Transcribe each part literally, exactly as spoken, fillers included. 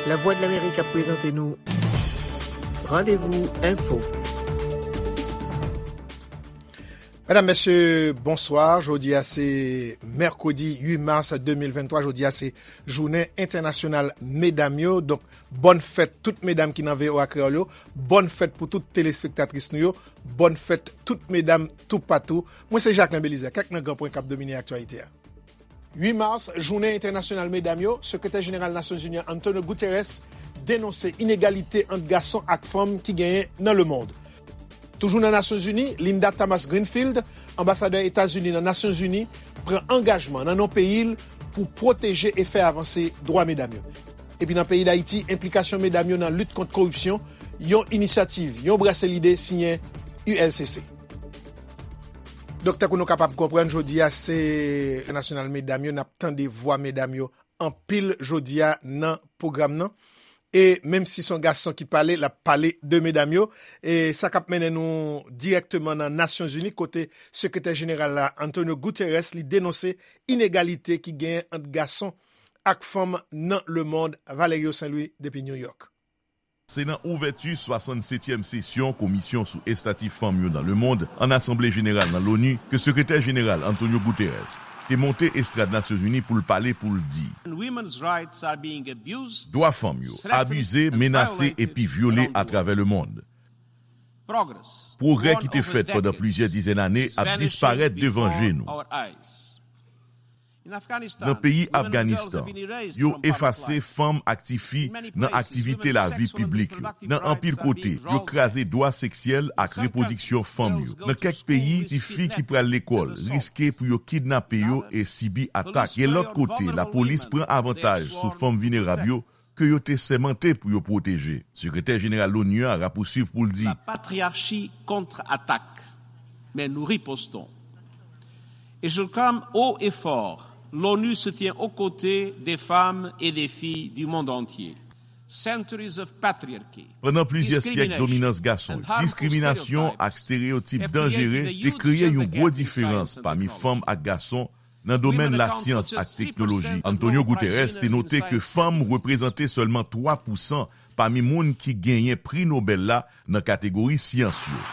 Lavwadlamerik ap prezante nou Randevou Enfo. Medam, mesye, bonswa. Jodi a se mèkredi uit mas de mil venntwa. Jodi a se jounen entènasyonal medam yo. Donk, bòn fèt tout medam ki nan V O A Kreyòl yo. Bòn fèt pou tout telespektatris nou yo. Bòn fèt tout medam toupatou. Mwen se Jacquelin Belizaire. Kèk nan gran pwen k ap domine aktyalite a. Uit mas, jounen entènasyonal medam yo, Sekretè Jeneral Nasyonzini an Antonio Guterres denonse inegalite ant gason ak fanm ki genyen nan lemonn. Toujou nan Nasyonzini, Linda Thomas-Greenfield, anbasadè Etazini nan Nasyonzini, pran angajman nan non peyi l pou pwoteje e fè avanse dwa medam yo. Epi nan peyi Dayiti, enplikasyon medam yo nan lit kont koripsyon, yon inisyativ, yon brase lide siyen U L C C. Donk, tankou nou kapab konprann, jodi a se nasyonal medam yo, n ap tande vwa medam yo anpil jodi a nan pwogram nan. E menm si se yon gason ki pale, l ap pale de medam yo. E sa k ap mennen nou dirèkteman nan Nasyonzini, kote Sekretè Jeneral la, Antonio Guterres, li denonse inegalite ki genyen ant gason ak fanm nan lemonn. Valerio Saint Louis depi New York. Se nan ouvèti swasannsetyèm sesyon Komisyon sou Estati Fanm yo nan lemonn an Asanble Jeneral nan Loni ke Sekretè Jeneral Antonio Guterres te monte estrad Nasyonzini pou l pale, pou l di: Dwa fanm yo abize, menase epi vyole atravè lemonn. Pwogrè ki te fèt pandan plizyè dizèn ane ap disparèt devan je nou. Nan peyi Afganistan, yo efase fanm ak tifi nan aktivite lavi piblik yo. Nan anpil kote, yo kraze dwa seksyèl ak repwodiksyon fanm yo. Nan kèk peyi, tifi ki pral lekòl riske pou yo kidnape yo e sibi atak. Gen lòt kote, lapolis pran avantaj sou fanm vinerab yo ke yo te sèmante pou yo pwoteje. Sekretè Jeneral Loni a rapouswiv pou l di: La patriarchi contre-attaque, mais nous ripostons. Et je clame haut et fort, l'ONU se tient aux côtés des femmes et des filles du monde entier. Centuries of patriarchy, pandan plizyè syèk dominans gason, diskriminasyon ak estereyotip danjere te kreye yon gwo diferans pami fanm ak gason nan domèn lasyans ak teknoloji. Antonio Guterres te note ke fanm reprezante sèlman twa pousan pami moun ki genyen Pri Nobèl la nan kategori syans yo.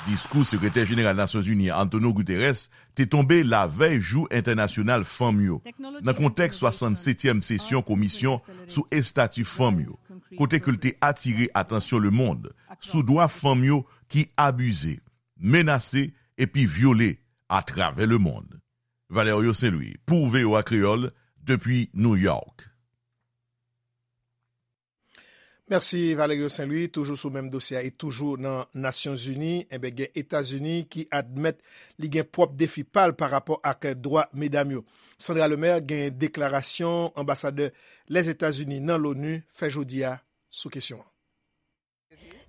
Diskou Sekretè Jeneral Nasyonzini Antonio Guterres te tonbe lavèy Jou Entènasyonal Fanm yo, nan kontèks swasannsetyèm sesyon Komisyon sou Estati Fanm yo, kote ke l te atire atansyon lemonn sou dwa fanm yo ki abize, menase epi vyole atravè lemonn. Valerio Saint Louis, pou V O A Kreyòl, depi New York. Mèsi, Valerio Saint Louis. Toujou sou menm dosye a e toujou nan Nasyonzini, enben, gen Etazini ki admèt li gen pwòp defi pa l pa rapò ak dwa medam yo. Sandra Lemaire gen deklarasyon anbasadè Lèzetazini nan Loni fè jodi a sou kesyon an.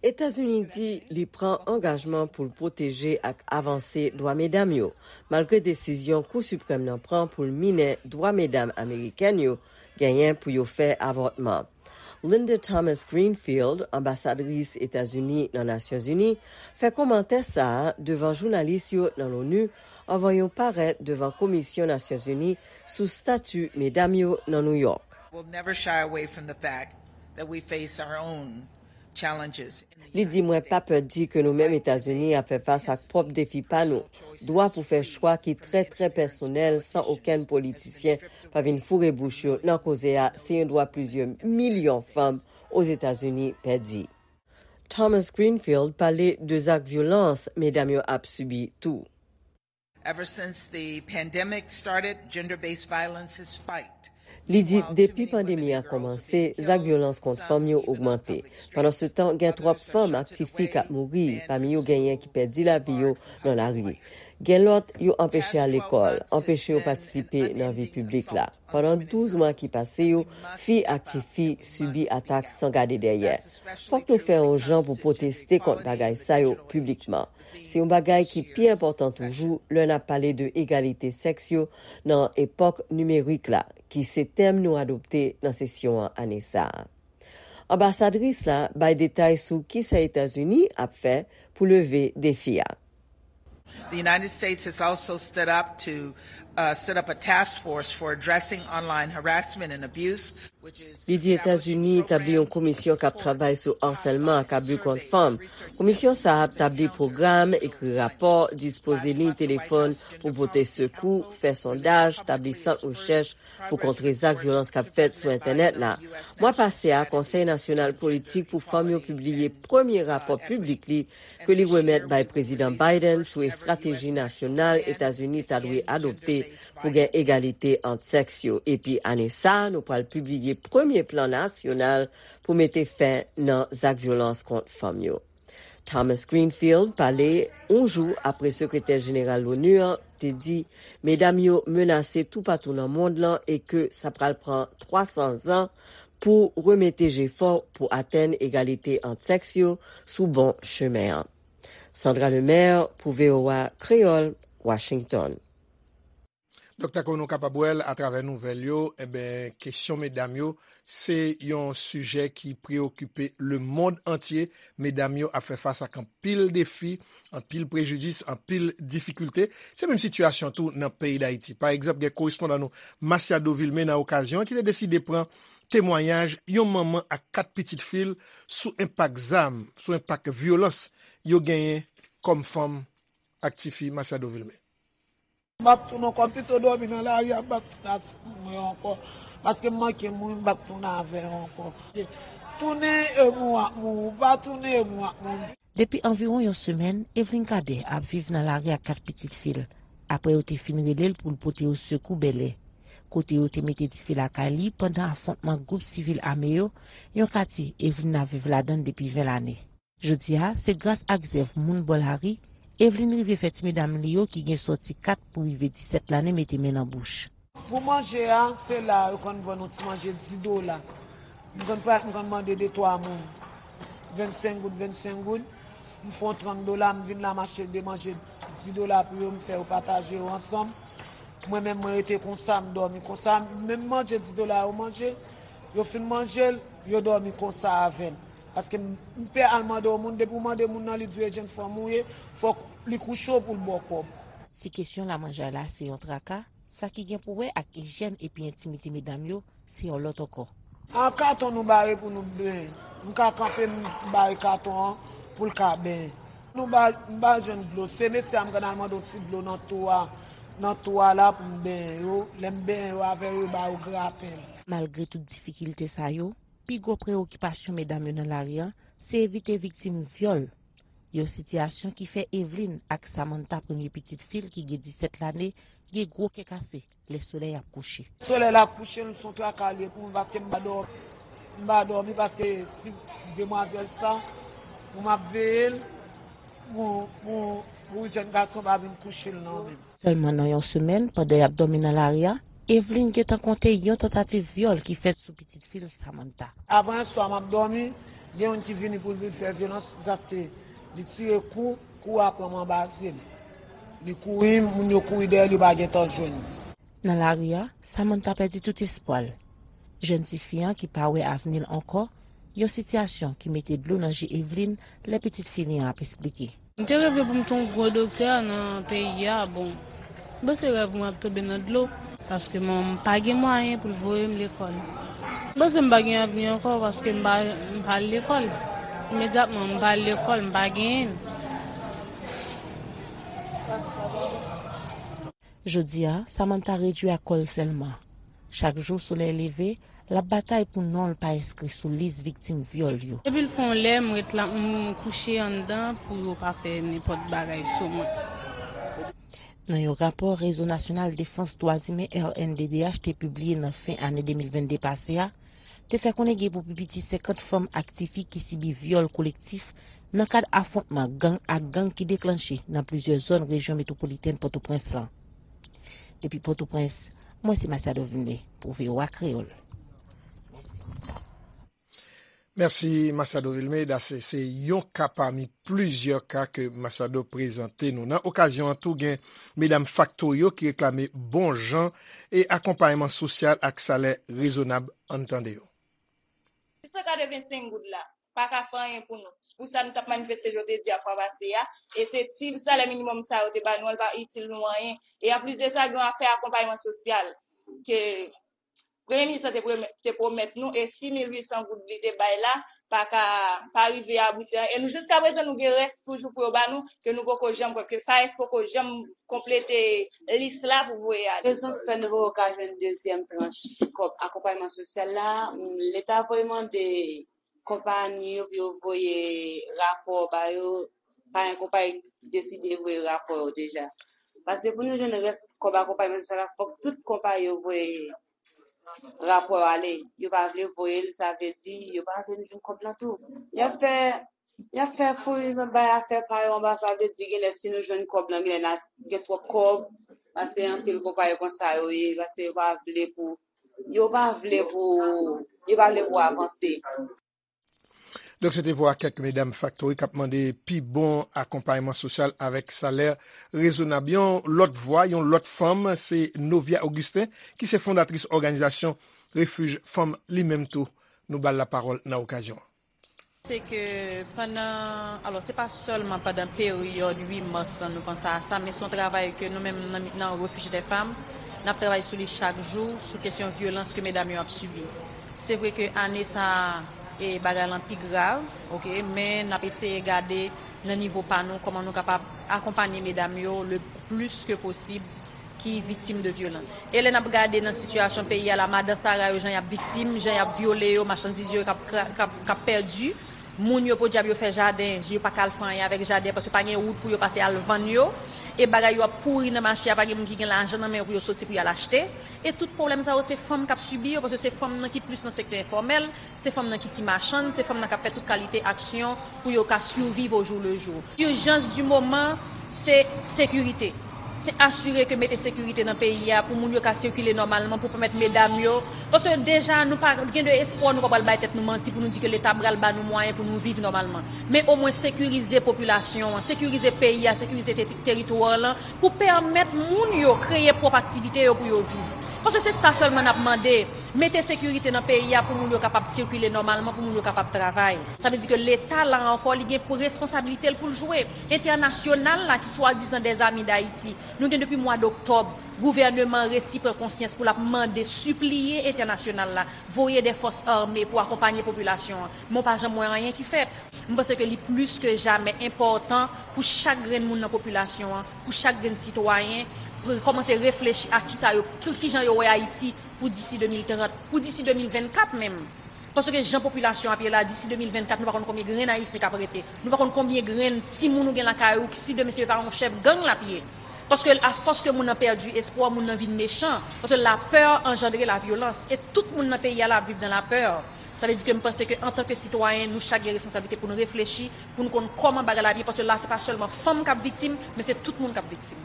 Etazini di li pran angajman pou l pwoteje ak avanse dwa medam yo, malgre desizyon Kou Siprèm nan pran pou l minen dwa medam amerikèn yo genyen pou yo fè avòtman. Linda Thomas Greenfield, anbasadris Etazini nan Nasyonzini, fè kòmantè sa a devan jounalis yo nan Loni anvan yo parèt devan Komisyon Nasyonzini sou Estati Medam yo nan Nouyòk. We'll never shy away from the fact that we face our own challenges. Li di: Mwen pa pè di ke nou menm Etazini ap fè fas ak pwòp defi pa nou. Dwa pou fè chwa ki trè, trè pèsonèl, san okenn politisyen pa vin foure bouch yo nan koze a, se yon dwa plizyè milyon fanm Ozetazini pèdi. Thomas Greenfield pale de zak vyolans medam yo ap sibi tou. Ever since the pandemic started, gender-based violence has spiked. Li di, depi pandemi a kòmanse, zak vyolans kont fanm yo ogmante. Pandansetan, gen twòp fanm ak tifi k ap mouri, pami yo genyen ki pèdi lavi yo nan lari. Gen lòt, yo anpeche al lekòl, anpeche yo patisipe nan vi piblik la. Pandan douz mwa ki pase yo, fi ak tifi sibi atak san gade dèyè. Fòk nou fè yon jan pou pwoteste kont bagay sa yo piblikman. Se yon bagay ki pi enpòtan toujou lè n ap pale de egalite sèks yo nan epòk nimerik la, ki se tèm nou adopte nan sesyon an ane sa a. Anbasadris la bay detay sou kisa Etazini ap fè pou leve defi a. The United States has also stood up to uh, set up a task force for addressing online harassment and abuse, which is Li di Etazini etabli yon komisyon k ap travay sou asèlman ak abi kont fanm. Komisyon sa a ap tabli pwogram, ekri rapò, dispoze liy telefòn pou pote sekou, fè sondaj, tabli sant rechèch pou kontre zak vyolans k ap fèt sou entènèt la. Mwa pase a, Konsèy Nasyonal Politik pou Fanm yo pibliye premye rapò piblik li ke li remèt bay Prezidan Biden sou estrateji nasyonal Etazini ta dwe adopte pou gen egalite ant sèks yo. Epi ane sa a, nou pral pibliye premye plan nasyonal pou mete fen nan zak vyolans kont fanm yo. Thomas Greenfield pale yon jou apre Sekretè Jeneral l'ONU an te di medam yo menase toupatou nan mond lan e ke sa pral pran twa san zan pou remete jefò pou atenn egalite ant sèks yo sou bon chemen an. Sandra Lemaire pou V O A Kreyòl, Washington. Doktè, kon nou kapab wè l atravè nouvèl yo, enben, kesyon medam yo, se yon sijè ki preyokipe lemonn antye. Medam yo ap fè fas ak anpil defi, anpil prejidis, anpil difikilte. Se menm sitiyasyon tou nan peyi Dayiti. Pa egzanp, gen korespondan nou, Masiado Vilmé, nan okazyon an, ki te deside pran temwayaj yon manman ak kat pitit fi l sou enpak zam, sou enpak vyolans yo genyen kòm fanm ak tifi. Masiado Vilmé. M ap tounen ankò, m pito dòmi nan lari a, m p ap tounen ak timoun mwen yo ankò. Paske m manke mouri, m p ap tounen avè yo ankò. Tounen e mouri w ap mouri, ou pa tounen e mouri w ap mouri. Depi anviwon yon semèn, Evelyn Cadet ap viv nan lari ak kat pitit fi l, apre yo te fin rele l pou l pote yo sekou Bèlè, kote yo te mete dife lakay li pandan afwontman gwoup sivil ame yo, yon katye Evelyn ap viv ladan l depi ven lane. Jodi a, se gras ak zèv moun bò lari, Evelyn rive fè ti medam li yo ki gen sòti kat pou rive disèt lane mete men nan bouch. Pou manje a, se la yo konn vann yon ti manje dis dola. M konn pa, m konn mande de twa moun vennsenk goud, vennsenk goud. M fè yon trant dola, m vin la m achte de manje dis dola pou yo, m fè yo pataje yo ansanm. Mwen menm, mwen rete konsa, m dòmi konsa. Menm manje dis dola yo manje, yo fin manje l, yo dòmi konsa avè m. Paske m, m pè al mande yon moun, depi w mande moun nan, li di w e jenn fanm ou ye, fòk li kouche w pou l ba w kòb. Si kesyon lamanjay la se yon traka, sa ki gen pou wè ak ijyèn epi entimite medam yo, se yon lòt ankò. An katon nou bare pou nou benyen. M ka kanpe m bare katon an pou l ka benyen. Nou ba, m ba jwenn dlo. Se mesye a m konn al mande yon ti dlo nan twou a, nan twou a la pou m benyen yo. Lè m benyen yo avè yo, yo ba yo graten. Malgre tout difikilte sa yo, pi gwo preyokipasyon medam yo nan lari a se evite viktim vyòl. Yon sitiyasyon ki fè Evelyn ak Samantha, premye pitit fi l ki gen disèt lane, gen gwo kè kase lè solèy ap kouche. Solèy la ap kouche, se yon traka l ye pou mwen paske m pa dòmi. M pa dòmi paske ti demwazèl sa, pou m ap veye l, pou, pou, pou jèn gason pa vin kouche l nan men m. Sèlman nan yon semèn, pandan y ap dòmi nan lari a, Evelyn gentan konte yon tantativ vyòl ki fèt sou pitit fi l, Samantha. Avan yè swa, m ap dòmi, gen youn ki vini pou l vin fè vyolans, paske li tire kou, kou a pran m anba zye m. Li kouri, moun yo kouri dèyè l, yo pa gentan jwenn li. Nan lari a, Samantha pèdi tout espwa l. Jèn tifi an ki pa wè avni l ankò, yon sitiyasyon ki mete dlo nan je Evelyn lè pitit fi li an ap esplike. M te reve pou m te yon gwo doktè nan peyi a, bon, m panse rèv mwen ap tonbe nan dlo, paske m pa gen mwayen pou l voye m lekòl. M panse m pa gen avni ankò paske m pa, m pa al lekòl. Imedyatman, m pa al lekòl, m pa genyen l. Jodi a, Samantha redui ak kò l sèlman. Chak jou solèy leve, l ap batay pou non l pa enskri sou lis viktim vyòl yo. Depi l fè yon lè, m ret la, m kouche anndan pou yo pa fè nenpòt bagay sou mwen. Nan yon rapò Rezo Nasyonal Defans Dwa Imen, R N D D H, te pibliye nan fen ane de mil vennde pase a, te fè konnen gen pou pi piti senkant fanm ak tifi ki sibi vyòl kolektif nan kad afwontman gang ak gang ki deklanche nan plizyè zòn rejyon metwopolitèn Pòtoprens lan. Depi Pòtoprens, mwen se Masiado Vilmé pou V O A Kreyòl. Mèsi Masiado Vilmé. Dase se yon ka pami plizyè ka ke Masiado prezante nou. Nan okazyon an tou, gen medam Factorio ki reklame bon jan e akonpayman sosyal ak salè rezonab. Ann tande yo. San katrevensenk goud la. pa ka fè anyen pou nou. Se pou sa nou t ap manifeste, jan w te di a fwa pase a. E se ti salè minimòm sa yo te ba nou an, li pa itil nou anyen. E anplis de sa, gen yon afè akonpayman sosyal ke Premye minis lan te pwomè- te pwomèt nou, e sis mil uit san goud li te bay la, pa ka, pa rive abouti anyen. E nou, jiska prezan, nou gen rès toujou pou yo ba nou, ke nou poko janm kwè, ke FAES poko janm konplete lis la pou voye ale. Rezon ki fè nou poko ka jwenn dezyèm tranch kòb akonpayman sosyal la, Leta voye mande konpayi yo pou yo voye rapò ba yo, pa gen konpayi ki deside voye rapò yo deja. Paske pou nou jwenn rès kòb akonpayman sosyal la, fòk tout konpayi yo voye rapò yo ale. Yo pa vle voye l, sa vle di yo pa vle nou jwenn kòb lan tou. Y ap fè, y ap fè fouri bay afè pa yo anba, sa vle di genlè si nou jwenn kòb lan, genlè n a gen twòp kòb, paske anpil konpayi konsa yo ye, paske yo pa vle pou, yo pa vle pou, yo pa vle pou avanse. Donk, se te vwa kèk medam faktori k ap mande pi bon akonpayman sosyal avèk salè rezonab. Yon lòt vwa, yon lòt fanm, se Novia Augustin, ki se fondatris òganizasyon Refij Fanm li menm tou. Nou ba l lapawòl nan okazyon an. Se ke pandan, alò, se pa sèlman pandan peryòd uit mas lan nou panse a sa, men se yon travay ke nou menm nan, nan Refuge des Femmes, n ap travay sou li chak jou, sou kesyon vyolans ke medam yo ap sibi. Se vre ke ane sa a, e bagay lan pi grav, oke, men n ap eseye gade nan nivo pa nou kòman nou kapab akonpanye medam yo le plis ke posib ki viktim de vyolans. E lè n ap gade nan sitiyasyon peyi a la, madan sara yo, jan y ap viktim, jan y ap vyole yo, machandiz yo k ap, k ap, k ap pèdi, moun yo, podyab, yo fè jaden, yo pa ka al fè anyen avèk jaden, paske pa gen wout pou yo pase al vann yo, e bagay yo ap pouri nan mache a, pa gen moun ki gen lajan nan men yo pou yo soti pou y al achte. E tout pwoblèm sa yo, se fanm k ap sibi yo, paske se fanm nan ki plis nan sektè enfòmèl, se fanm nan ki ti machann, se fanm nan k ap fè tout kalite aksyon pou yo ka surviv au jour le jour. Ijans di moman, se sekirite. Se asire ke mete sekirite nan peyi a pou moun yo ka sikile nòmalman, pou pèmèt medam yo. Paske deja, nou pa gen de espwa, nou pa pral bay tèt nou manti pou nou di ke Leta pral ba nou mwayen pou nou viv nòmalman. Men omwen sekirize popilasyon an, sekirize peyi a, sekirize te- teritwa lan, pou pèmèt moun yo kreye pwòp aktivite yo pou yo viv. Paske se sa sèlman n ap mande. Mete sekirite nan peyi a pou moun yo kapab sikile nòmalman, pou moun yo kapab travay. Sa vle di ke Leta la ankò, li gen pou responsabilite l pou l jwe. Entènasyonal la, ki swadizan des amis d'Haïti, nou gen depi mwa doktòb, gouvèneman an resi pran konsyans pou l ap mande, sipliye entènasyonal la, voye de fòs ame pou akonpanye popilasyon an. Men w pa janm wè anyen ki fèt. M panse ke li plis ke jamè enpòtan pou chak grenn moun nan popilasyon an, pou chak grenn sitwayen, pou kòmanse reflechi a kisa yo, ki, kijan yo wè Ayiti pou disi de mil trant, pou disi de mil vennkat menm. Paske jan popilasyon ap ye la, disi de mil vennkat, nou pa konn konbyen grenn Ayisyen k ap rete. Nou pa konn konbyen grenn timoun ou gen lakay ou, si demen se pa yon chèf gang l ap ye. Paske afòs ke moun nan pèdi espwa, moun nan vin mechan. Paske lapè anjandre lavyolans. E tout moun nan peyi a la ap viv nan lapè. Sa vle di ke m panse ke antanke sitwayen, nou chak gen responsablite pou nou reflechi, pou nou konn kòman bagay la ap ye. Paske la, se pa sèlman fanm k ap viktim, men se tout moun k ap viktim.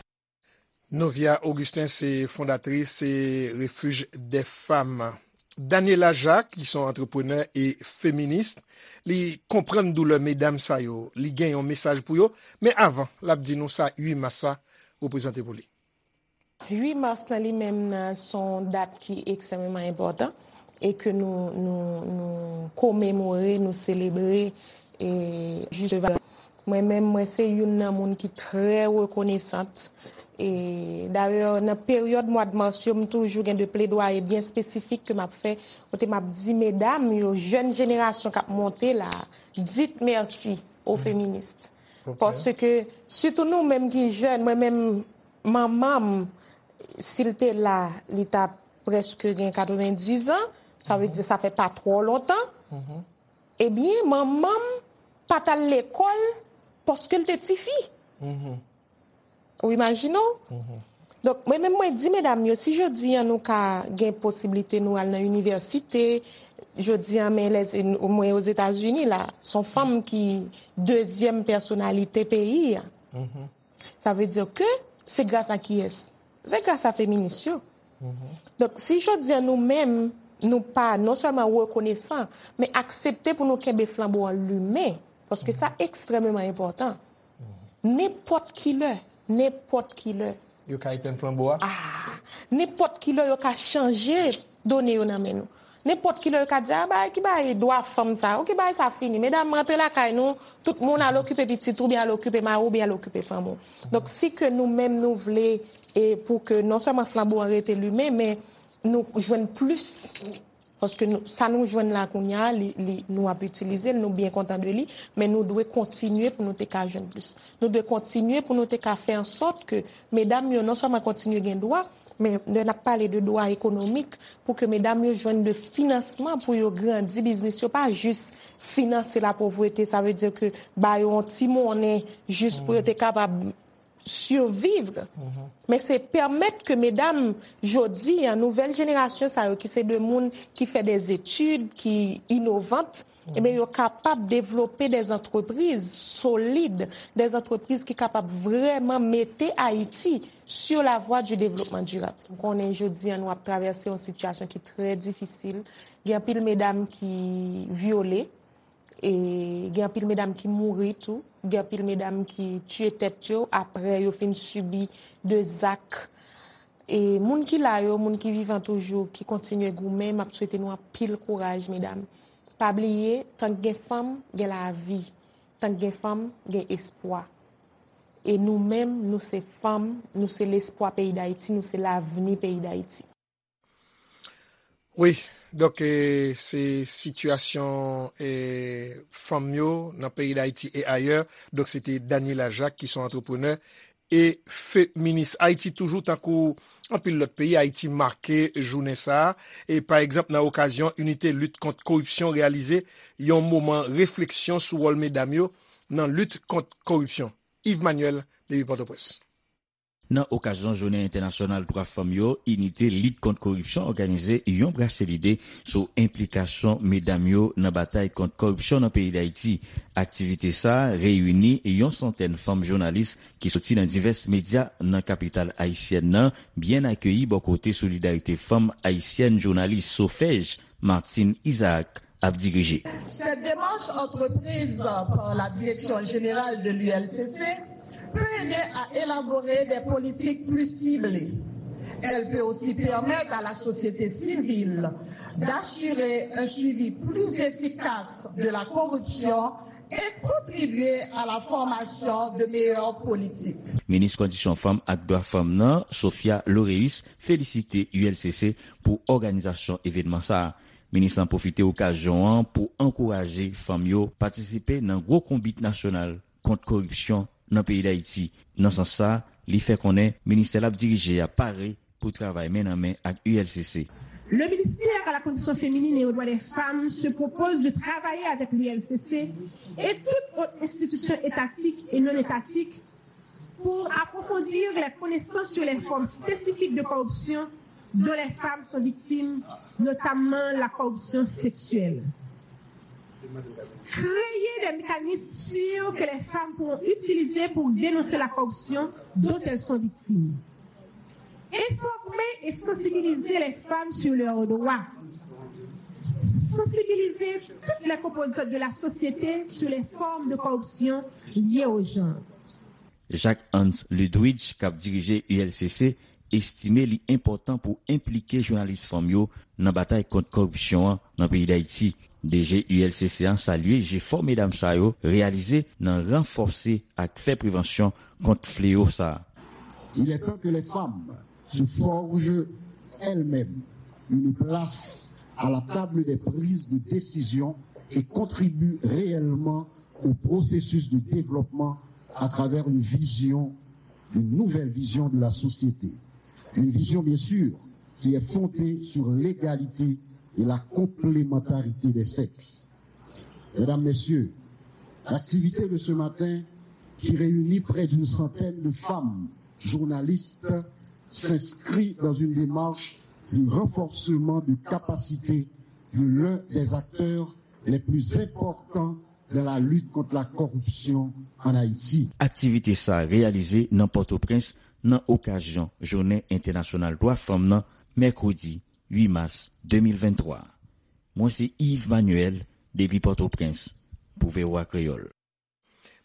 Novia Augustin se fondatris se Refuge des Femmes. Daniela Jacques, ki se yon antreprenè e feminis, li konprann doulè medam sa yo, li gen yon mesaj pou yo, men avan, l ap di nou sa uit mas sa reprezante pou li. Uit mas lan li menm nan se yon dat ki ekstrèmeman enpòtan e ke nou, nou, nou komemore, nou selebre e jis devan. Mwen menm, mwen se youn nan moun ki trè rekonesant. E dayè, nan peryòd mwa de mas yo, m toujou gen de pledwaye byen espesifik ke m ap fè, kote m ap di medam yo, jèn jenerasyon k ap monte la, dites merci aux féministes. Paske, sitou nou menm ki jèn, mwen menm, manman m, si l te la, li t ap prèske gen katrevendiz an, sa vle di sa fè pa twò lontan. Ebyen, manman m pa t al lekòl paske l te tifi. Ou imajine w? Donk, mwen menm, mwen di medam yo, si jodi an nou ka gen posiblite nou al nan inivèsite, jodi an, men lè, mwen Ozetazini la, se yon fanm ki dezyèm pèsonalite peyi a. Sa vle di ke se gras a kiyès? Se gras a feminis yo. Donk, si jodi an nou menm, nou pa non sèlman rekonesan, men aksepte pou nou kenbe flanbo an limen, paske sa ekstrèmeman enpòtan. Nenpòt ki lè, nenpòt ki lè. Yo ka etenn flanbo a? Ah, nenpòt ki lè yo ka chanje done yo nan men nou. Nenpòt ki lè yo ka di, a, bagay ki bagay dwa fanm sa, oke, bagay sa fini. Medam, rantre lakay nou, tout moun al okipe pitit ou, oubyen al okipe mari w, oubyen al okipe fanmi w. Donk, si ke nou menm nou vle, e pou ke non sèlman flanbo an rete limen, men nou jwenn plis. Paske nou, sa nou jwenn la kounye a, li, li, nou ap itilize l, nou byen kontan de li, men nou dwe kontinye pou nou te ka jwenn plis. Nou dwe kontinye pou nou te ka fè an sòt ke medam yo non sèlman kontinye gen dwa, men lè n ap pale de dwa ekonomik, pou ke medam yo jwenn de finansman pou yo grandi biznis yo, pa jis finanse lapovrete, sa vle di ke ba yo yon ti monnen jis pou yo te kapab survivre. Men se pèmèt ke medam, jodi a, nouvèl jenerasyon sa yo, ki se de moun ki fè des études, ki innovant, ebyen, yo kapab devlope des entreprises solides, des entreprises ki kapab vrèman mete Ayiti sur la voie du développement durable. M konnen jodi a, nou ap travèse yon sitiyasyon ki trè difisil. Gen anpil medam ki vyole, e gen anpil medam ki mouri tou, gen anpil medam ki tiye tèt yo apre yo fin sibi de zak. E moun ki la yo, moun ki vivan toujou, ki kontinye goumen, m ap swete nou anpil kouraj, medam. Pa bliye, tank gen fanm, gen lavi. Tank gen fanm, gen espwa. E nou menm, nou se fanm, nou se lespwa peyi Dayiti, nou se lavni peyi Dayiti. Wi, donk, e, se sitiyasyon, e, fanm yo nan peyi Dayiti e ayè. Donk, se te Daniela Jacques, ki se yon antreprenè e feminis. Ayiti toujou, tankou anpil lòt peyi, Ayiti make jounen sa a. E, pa egzanp, nan okazyon Inite Lit Kont Koripsyon reyalize yon moman refleksyon sou wòl medam yo nan lit kont koripsyon. Yves Manuel, depi Pòtoprens. Nan okazyon Jounen Entènasyonal Dwa Fanm yo, Inite Lit Kont Koripsyon òganize yon brase lide sou enplikasyon medam yo nan batay kont kòripsyon nan peyi Dayiti. Aktivite sa a reyini yon santèn fanm jounalis ki soti nan divès medya nan kapital ayisyèn nan, byen akeyi bò kote Solidarite Fanm Ayisyèn Jounalis, SOFEJ, Martine Isaac ap dirije. Cette démarche entreprise par la Direction générale de l'U L C C peut aider à élaborer des politiques plus ciblées. Elle peut aussi permettre à la société civile d'assurer un suivi plus efficace de la corruption et contribuer à la formation de meilleures politiques. Minis Kondisyon Fanm ak Dwa Fanm nan, Sophia Loreus, felisite U L C C pou òganizasyon evènman sa a. Minis lan pwofite okazyon an pou ankouraje fanm yo patisipe nan gwo konbit nasyonal kont kòripsyon nan peyi Dayiti. Nan sans sa, li fè konnen ministè l ap dirije a pare pou travay men nan men ak U L C C. Le ministère à la condition féminine et aux droits des femmes se propose de travailler avec l'U L C C et toute autre institution étatique et non étatique pour approfondir les connaissances sur les formes spécifiques de corruption dont les femmes sont victimes, notamment la corruption sexuelle. Créer des mécanismes sûrs que les femmes pourront utiliser pour dénoncer la corruption dont elles sont victimes. Informer et sensibiliser les femmes sur leurs droits. Sensibiliser toutes les composantes de la société sur les formes de corruption liées au genre. Jacques Hans Ludwig, k ap dirije U L C C, estime li enpòtan pou enplike jounalis fanm yo nan batay kont kòripsyon an nan peyi Dayiti. D G U L C C a salye jefò medam sa yo reyalize nan ranfòse ak fè prevansyon kont fleyo sa a. Il est temps que les femmes se forgent elles-mêmes une place à la table des prises de décision et contribuent réellement au processus de développement à travers une vision, une nouvelle vision de la société. Une vision, bien sûr, qui est fondée sur l'égalité et la complémentarité des sexes. Mesdames, Messieurs, l'activité de ce matin, qui réunit près d'une centaine de femmes journalistes, s'inscrit dans une démarche de renforcement de capacités de l'un des acteurs les plus importants dans la lutte contre la corruption en Haïti. Aktivite sa a reyalize nan Pòtoprens nan okazyon Jounen Entènasyonal Dwa Fanm nan, mèkredi uit mas de mil venntwa. Mwen se Yves Manuel, depi Pòtoprens, pou V O A Kreyòl.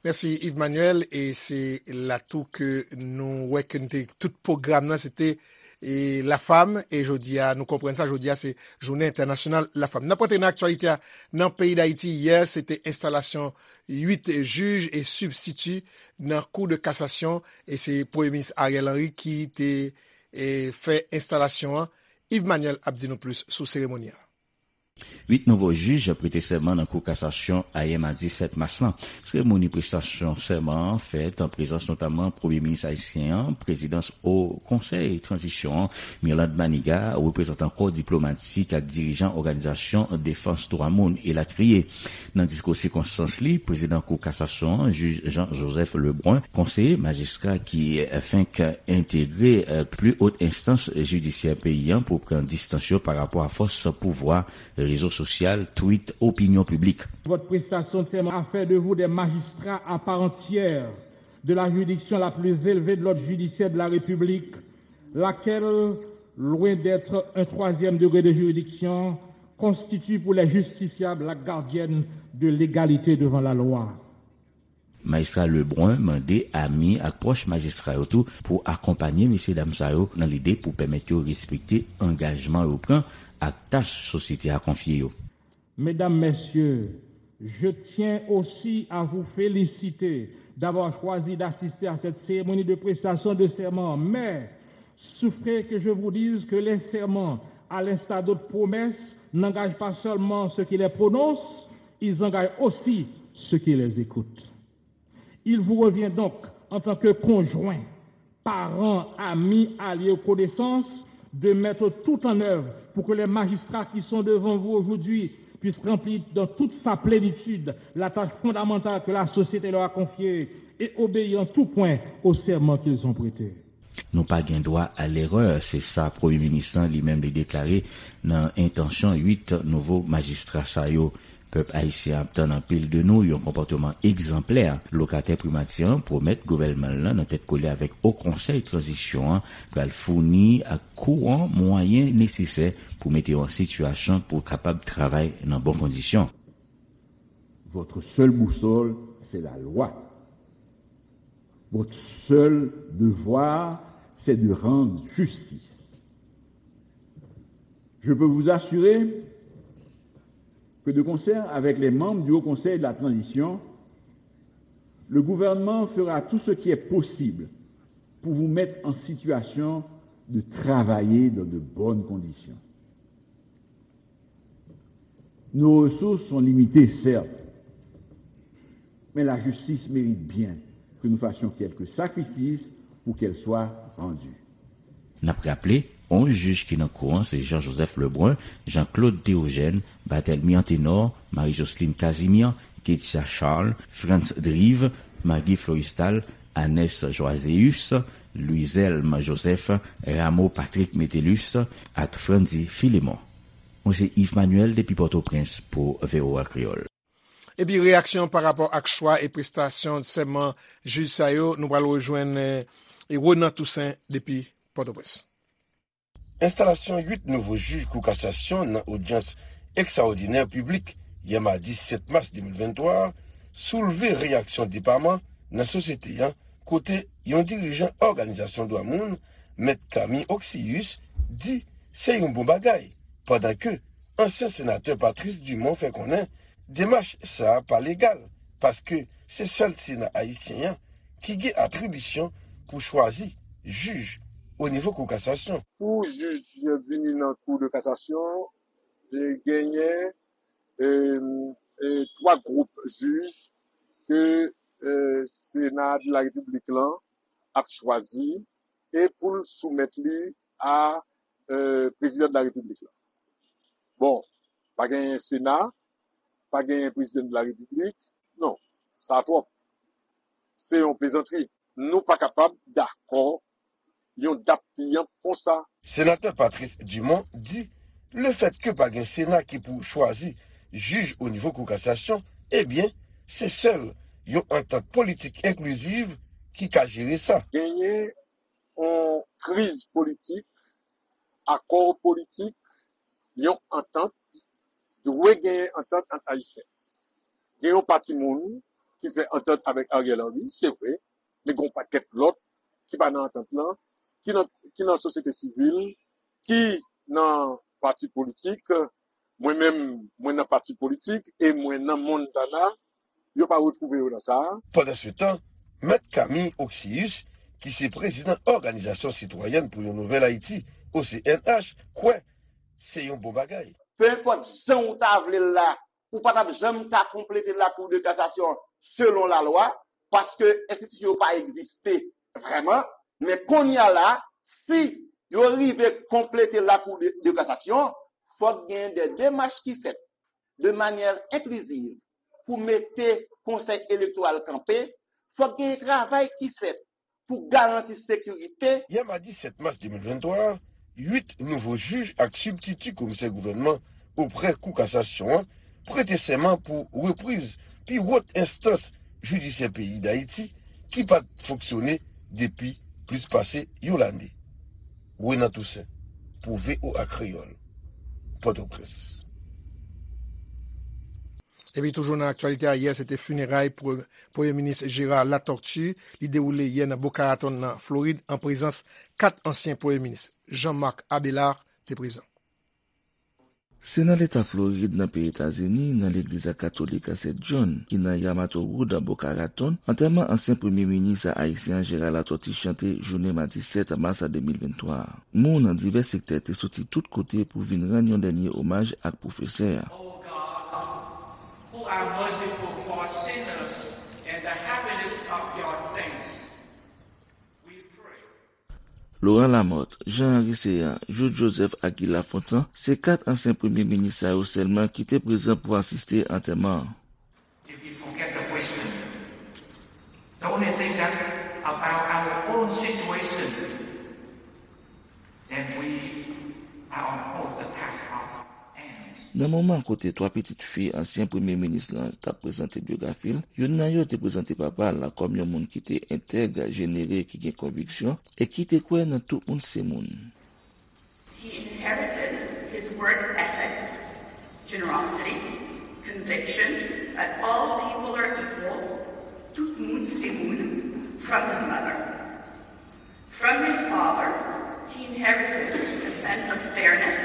Mèsi Yves Manuel, e se la tou ke nou wè ke nou te tout pwogram nan, se te e Lafam, e jodi a, nou konprann sa, jodi a se jounen entènasyonal Lafam. N ap rantre nan aktyalite a nan peyi Dayiti. Yè, se te enstalasyon uit jij e sibstiti nan Kou de Kasasyon, e se Premye Minis Ariel Henry ki te, e, fè enstalasyon an. Yves Manuel ap di nou plis sou seremoni an. Uit nouvo jij prete sèman nan Kou Kasasyon ayè madi sèt mas lan. Seremoni prestasyon sèman an fèt an prezans notamman Premye Minis ayisyen an, prezidans Wo Konsèy Tranzisyon an, Mirlande Manigat, reprezantan kò diplomatik ak dirijan òganizasyon defans dwa moun, elatriye. Nan diskou sikonstans li, prezidan Kou Kasasyon an, jij Jean Joseph Lebrun, konseye majistra ki fenk entegre, eh, pli wot enstans jidisyè peyi an pou pran distans yo pa rapò a fòs pouvwa rezo sosyal, tweet, opinyon piblik. Votre prestation de serment a fait de vous des magistrats à part entière de la juridiction la plus élevée de l'ordre judiciaire de la République, laquelle, loin d'être un troisième degré de juridiction, constitue pour les justiciables la gardienne de l'égalité devant la loi. Majistra Lebrun mande ami ak pwòch majistra yo tou pou akonpanye mesyedam sa yo nan lide pou pèmèt yo respekte angajman yo pran ak tach sosyete a konfye yo. Mesdames, Messieurs, je tiens aussi à vous féliciter d'avoir choisi d'assister à cette cérémonie de prestation de serment, mais souffrez que je vous dise que les serments, à l'instar d'autres promesses, n'engagent pas seulement ceux qui les prononcent, ils engagent aussi ceux qui les écoutent. Il vous revient donc, en tant que conjoint, parent, ami, allié ou connaissance, de mettre tout en œuvre pour que les magistrats qui sont devant vous aujourd'hui puissent remplir dans toute sa plénitude la tâche fondamentale que la société leur a confiée et obéir en tout point au serment qu'ils ont prêté. Nou pa gen dwa a lerè, se sa Premye Minis lan li menm li deklare nan entansyon uit nouvo majistra sa yo. Pèp ayisyen ap tann anpil de nou yon konpòteman egzanplè. Lokatè primati an pwomèt gouvènman l lan nan tèt kole avèk Wo Konsèy Tranzisyon an pral founi ak kouran mwayen nesesè pou mete yo an sitiyasyon pou kapab travay nan bon kondisyon. Votre seule boussole, c'est la loi. Votre seul devoir, c'est de rendre justice. Je peux vous assurer que de concert avec les membres du Haut Conseil de la Transition, le gouvernement fera tout ce qui est possible pour vous mettre en situation de travailler dans de bonnes conditions. Nos ressources sont limitées, certes, mais la justice mérite bien que nous fassions quelques sacrifices pour qu'elle soit rendue. N ap raple, onz jij ki nan kou an se Jean Joseph Lebrun, Jean Claude Théogène, Barthélemy Anténor, Marie Jocelyne Casimir, Ketia Charles, Frantz Drive, Maggie Floristal, Anès Joiséus, Louiselme Joseph, Rameau Patrick Metellus ak Frandy Philémon. Mwen se Yves Manuel depi Pòtoprens pou V O A Kreyòl. Epi reyaksyon pa rapò ak chwa e prestasyon sèman jij sa yo, nou pral rejwenn, eh, Ronan Toussaint depi Pòtoprens. Enstalasyon uit nouvo jij Kou Kasasyon nan odyans ekstraòdinè piblik yè madi sèt mas de mil venntwa a soulve reyaksyon depaman nan sosyete an, kote yon dirijan òganizasyon dwa moun, Mèt Camille Oxius, di se yon bon bagay, pandan ke ansyen senatè Patrice Dumont fè konnen demach sa a pa legal, paske se sèl Sena ayisyen an ki gen atribisyon pou chwazi jij o nivo Kou Kasasyon. Pou jij vini nan Kou de Kasasyon, e, genyen, e, e, twa gwoup jij ke, e, Sena de la Repiblik lan ap chwazi e pou l soumèt li a, e, Prezidan de la Repiblik la. Bon, pa genyen Sena, pa genyen Prezidan de la Repiblik. Non, sa twòp. Se yon plezantri. Nou pa kapab dakò yon dap piyan konsa. Senatè Patrice Dumont di, lefètke pa gen Sena ki pou chwazi jij o nivo Kou Kasasyon, ebyen, se sèl yon antant politik enkliziv ki ka jere sa. Genyen yon kriz politik, akò politik, yon antant, dwe genyen antant ant Ayisyen. Gen yon pati moun ki fè antant avèk Ariel Henry, se vre, men gen yon pakèt lòt ki pa nan antant lan, ki nan, ki nan sosyete sivil, ki nan pati politik. Mwen menm, mwen nan pati politik e mwen nan Montana, yo pa retwouve yo nan sa a. Pandansetan, Mèt Camille Oxius, ki se prezidan Òganizasyon Sitwayèn pou yon Nouvèl Ayiti, O C N H, kwè se yon bon bagay. Penenpòt jan ou ta vle l la, ou pa t ap janm ka konplete Lakou de Kasasyon selon lalwa, paske enstitisyon yo pa egziste vrèman. Men kounye a la, si yo rive konplete Lakou de, de Kasasyon, fòk gen de demach ki fèt de manyè enkliziv pou mete Konsèy Elektoral kanpe, fòk gen travay ki fèt pou garanti sekirite. Yè madi sèt mas de mil venntwa a, uit nouvo jij ak sibtiti komisè gouvènman oprè Kou Kasasyon an prete sèman pou repriz pi wòt enstans jidisyè peyi Dayiti ki pa t fonksyone depi plis pase yon lane. Renan Toussaint, pou V O A Kreyòl, Pòtoprens. Epi toujou nan aktyalite a, yè se te fineray pre-, Premye Minis Gérard Latortue. Li dewoule yè nan Boca Raton nan Florid an prezans kat ansyen Premye Minis. Jean-Marc Abélard te prezan. Se nan leta Florid, nan peyi Etazini, nan legliz a katolik a Sent John, ki nan Yamato Road, Boca Raton, antèman ansyen premye minis ayisyen an Gérard Latortue chante jounen madi sèt mas de mil venntwa a. Moun nan divès sektè te soti tout kote pou vin rann yon dènye omaj ak pwofesè a. O God, who are merciful for sinners and the happiness of your saints, we pray. Laurent Lamothe, Jean Henry Céant, Jude Joseph ak Guy Lafontant se kat ansyen premye minis sa yo sèlman ki te prezan pou asiste antèman an. If we forget the wisdom, the only thing that about our own situation, then we are on both the path of end. Nan moman kote twa pitit fi ansyen premye minis lan t ap prezante byografi l, youn nan yo te prezante papa l kòm yon moun ki te entèg, jenere, ki gen konviksyon e ki te kwè nan tout moun se moun. He inherited his work ethic, generosity, conviction that all people are equal, tout moun se moun, from his mother. From his father, he inherited a sense of fairness,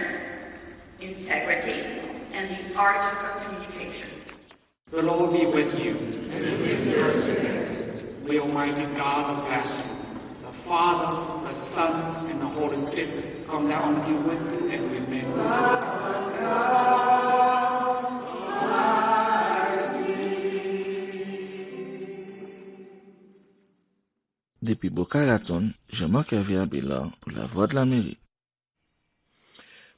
integrity, and the art of communication. The Lord be with you. And with your spirit. May Almighty God bless you, the Father, the Son, and the Holy Spirit come down and be with you and remain with you. Depi Boca Raton, Jean-Marc Hervé Abélard pou Lavwadlamerik.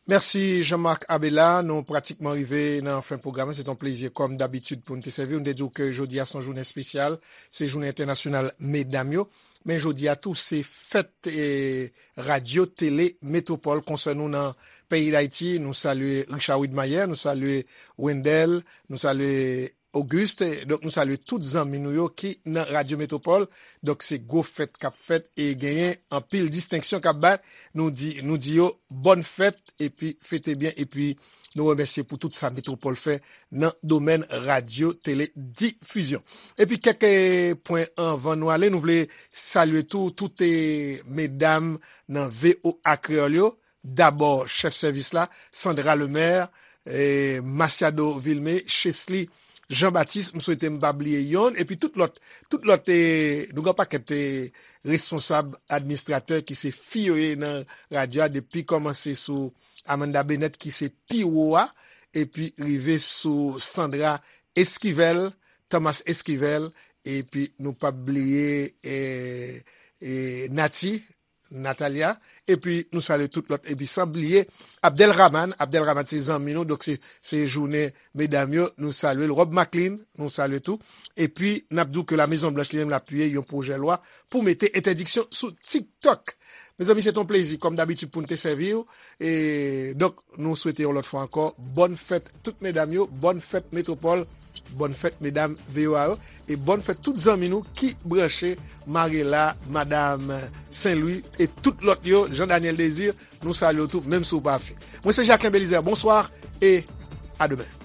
Mèsi Jean-Marc Abélard. Nou pratikman rive nan fen pwogram nan. Se t on plezi kòm dabitid pou n te sèvi w. Nou te di w ke jodi a se yon jounen espesyal, se jounen entènasyonal medam yo. Men jodi a tou, se fèt, eh, Radyo Tele Metwopòl konsène nou nan peyi Dayiti. Nou salye Richard Widmayer, nou salye Wendell, nou salye Auguste, donk nou salye tout zanmi nou yo ki nan Radyo Metwopòl. Donk se gwo fèt k ap fèt e genyen anpil distenksyon k ap bay. Nou di, nou di yo bòn fèt epi fete byen epi nou remèsye pou tout sa Metwopòl fè nan domèn radyo tele difizyon. Epi kèk, eh, pwen anvan nou ale, nou vle salye tou, tout, eh, medam nan V O A Kreyòl yo. Dabò, chèf sèvis la, Sandra Lemaire, eh, Masiado Vilmé, Chesly Jean Baptiste, m swete m pa bliye yonn, epi tout lòt, tout lòt, eh, nou gen pakèt, eh, responsab, administratè ki se fi yo ye nan radyo a, depi kòmanse sou Amanda Bennett ki se pi wo a, epi rive sou Sandra Esquivel, Thomas Esquivel, epi nou p ap bliye, eh, eh, Nati, Natalia, epi nou salye tout lòt, epi san bliye Abdel Rahman. Abdel Rahman se zanmi nou, donk se, se jounen medam yo, nou salye l. Rob Maclean, nou salye tou. Epi n ap di w ke La Mezon Blanch li menm l apiye yon pwojè lwa pou mete entèdiksyon sou TikTok. Mezanmi, se t on plezi, kòm dabitid, pou n te sèvi w. E donk, nou swete yon lòt fwa ankò, bòn fèt tout medam yo, bòn fèt Metwopòl, bòn fèt medam V O A yo, e bòn fèt tout zanmi nou ki branche, Marela, Madam Sen Lwi, e tout lòt yo, Jean Daniel Désir, nou salye w tou, menm si w pa fè. Mwen se Jacquelin Belizaire, bonswa, e a demen.